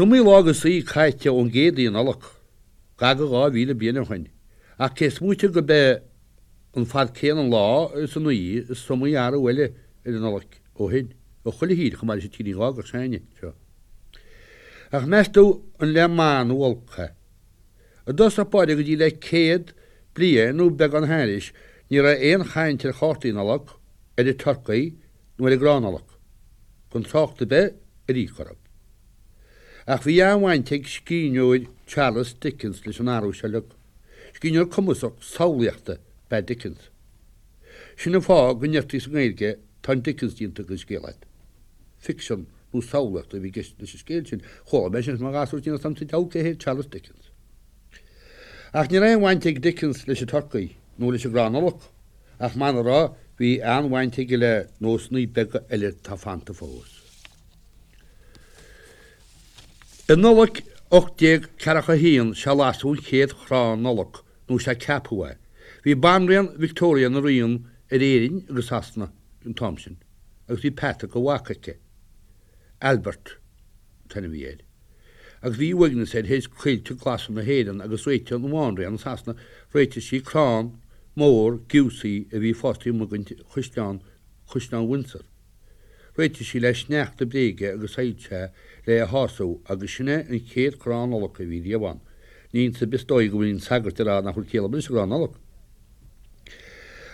Is iomaí lá agus oíche caite ón gcéad Oíche Nollag, gar do 2,000 bliain ó shin, ach cé is móite gurb é an fad céanna an lá is an oíche is iomaí athrú eile ar an Nollaig ó shin, i chuile thír chomh maith leis an tírín ghágach s'againne seo. Ach meas tú an le maith nó olc é? I dtosach báire go dtí le 100 bliain nó beagán thairis ní raibh aon chaint ar chártaí Nollag, ar an turcaí nó ar an gcrann Nollag, gan trácht ar bith ar íoc orthu. Ach bhí an-bhaint ag scríbhneoir Charles Dickens leis an athrú seo uilig. Scríbhneoir cumasach samhlaíochta ab ea Dickens. Sin an fáth go ndeirtí sa nGaeilge tá an Dickens déanta den scéal agat. Ficsean nó samhlaíocht a bhí i gceist leis an scéal sin. Chuala mé sin is mo ghasúr tinn is sa diabhal cé hé Charles Dickens. Ach ní raibh aon bhaint ag Dickens leis an turcaí nó leis an gcrann Nollag, ach muna raibh, bhí an-bhaint aige le nósanna beaga eile atá fanta fós. I Nollaig 1841 sea lasadh an chéad chrann Nollag, nó sea ceapadh é. Bhí Banríon Victoria ina ríon ar Éirinn agus Sasana an t-am sin, agus bhí peata de mhac aici, Albert an t-ainm a bhí air, agus bhí uaigneas air théis coillte glasa na hÉireann agus réitigh an Bhanríon i Sasana, réitigh sí crann mór giúsaí a bhí fásta amuigh ag chaisleán, Caisleán Windsor. Réitigh sí le sneachta bréige agus soilse le é a shású agus sin é an chéad chrann Nollag a bhí riamh ann. Ní iontas ar bith is dóigh go bhfuil aon sagart ag rá nach bhfuil ciall ar bith leis an gcrann Nollag.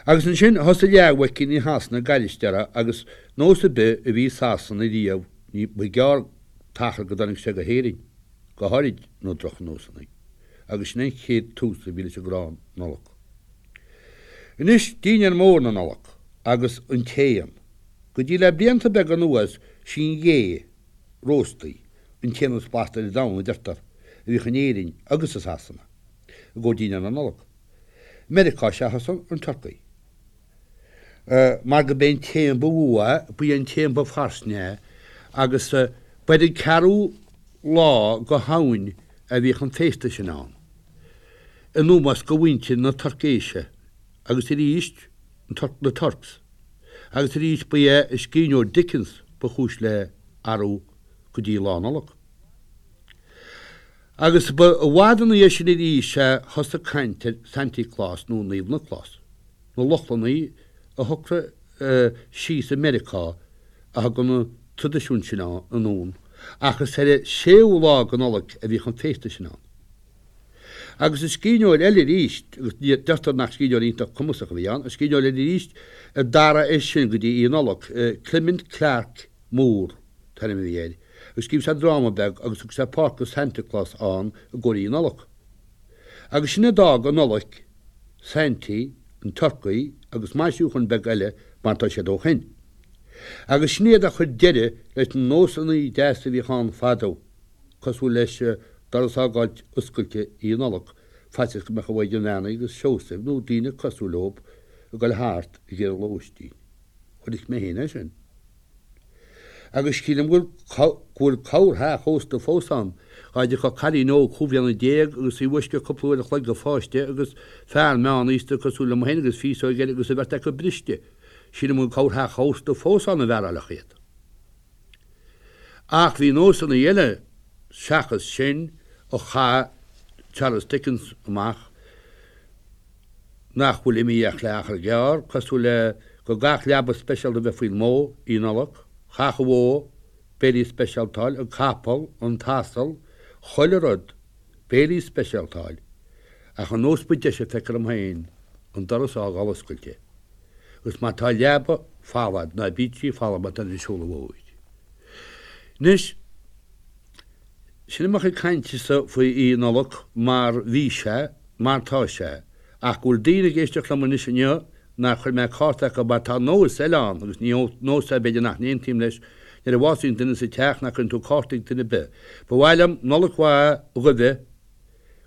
Agus ansin thosaigh leathmhuicíní Shasana ag gairistí orthu agus nós ar bith a bhí i Sasana riamh ní ba ghearr t-achar go dtáinig sé go hÉirinn, go háirid na drochnósanna. Agus sin é an chéad tús a bhí leis an gcrann Nollag. Anois dinnéar mór na Nollag agus an t-éan. Go dtí le blianta beaga anuas sí an ghé róstaí an t-éan is blasta ar domhan, a deirtear, a bhíodh in Éirinn agus i Sasana i gcomhair dinnéar na Nollag. I Meiriceá sea thosaigh an turcaí. Mar go b'é an t-éan ba mhó é, ba é an t-éan ba fairsinge é agus ba ar an ceathrú lá go Shamhain a bhíodh an féasta sin ann. In ómós go mhuintir na Tuircéise agus arís na Turks agus arís ba é an scríbhneoir Dickens ba chúis le athrú go dtí Lá Nollag. Agus ba i bhfad ina dhiaidh sin arís a thosaigh caint ar Santy Claus nó Naomh Nioclás. Na Lochlannaigh a shocraigh síos i Meiriceá a thug an traidisiún sin anonn ach is ar an séú lá go Nollaig a bhíodh an féasta sin ann. Agus an scríbhneoir eile arís, agus deirtear nach scríbhneoir iontach cumasach a bhí ann, an scríbhneoir eile arís a d'athraigh é sin go dtí Oíche Nollag, Clement Clarke Moore an t-ainm a bhí air, agus scríobh sé dráma beag agus thug sé páirt do Santa Claus ann i gcomhair Oíche Nollag. Agus sin a d'fhág an Nollaig, Saintí, an turcaí agus maisiúcháin beaga eile mar atá siad ó shin. Agus sin iad a chuir deireadh leis na nósanna deasa a bhíodh ann fadó. cosúil leis doras a fhágáilt oscailte Oíche Nollag, faitíos go mbeadh an Mhaighdean Bheannaithe agus Seosamh nó daoine cosúil leo ag dul thart ag iarraidh lóistín. Chonaic mé féin é sin. Agus sílim go bhfuil corrtheach ósta fós ann, dhá dtiocfadh cailín óg chúig bhliana agus í i bhfoisceacht cúpla uair a chloig go pháiste agus fear meánaosta cosúil liom féin agus féasóg air agus an bheirt acu briste. Sílim go bhfuil corrtheach ósta fós ann a mhearáilfeadh iad. Ach bhí nósanna eile seachas sin a chaith Charles Dickens amach nach bhfuil imithe ach le achar gearr, cosúil le go gcaithfeadh leaba speisialta a bheith faoin mbó Oíche Nollag, chaithfeadh an bhó béilí speisialta a fháil, an capall, an t-asal, chuile rud, béilí speisialta a fháil. Ach an nós ba deise feictear dom féin, an doras a fhágáil oscailte. Agus má tá leaba folamh a'd, ná bíodh sí folamh má tá an seoladh mhóir. Anois, sin é mo chuid cainte-sa faoi Oíche Nollag mar bhí sé, mar tá sé, ach go bhfuil daoine ag éisteacht liom anois inniu nár chuir mé cárta acu mar tá nós eile ann agus ní nós é b'fhéidir nach n-aontaím leis, nuair a bhásaíonn duine sa teach nach gcuireann tú cárta ag duine ar bith. Ba mhaith liom Nollaig mhaith dhaoibh,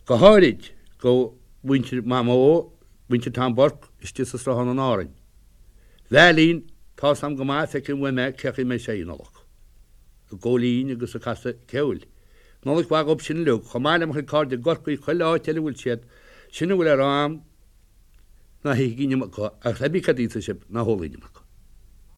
go háirid go mhuintir Mhamó, Muintir Tom Burke istigh sa Sruthán in Árainn. Veailín, tá's a'm go maith, feicim uaim é cé chaoi a mbeidh sé Oíche Nollag. Ag góilín agus ag casadh ceoil. Nollaig mhaith dhób sin uilig, chomh maith le mo chuid cairde i gCorcaigh, chuile áit eile a bhfuil siad. Sin a bhfuil le rá a'm, ná hithigí an iomarca, agus pé bí cad a íosfaidh sibh, ná hólaigí an iomarca.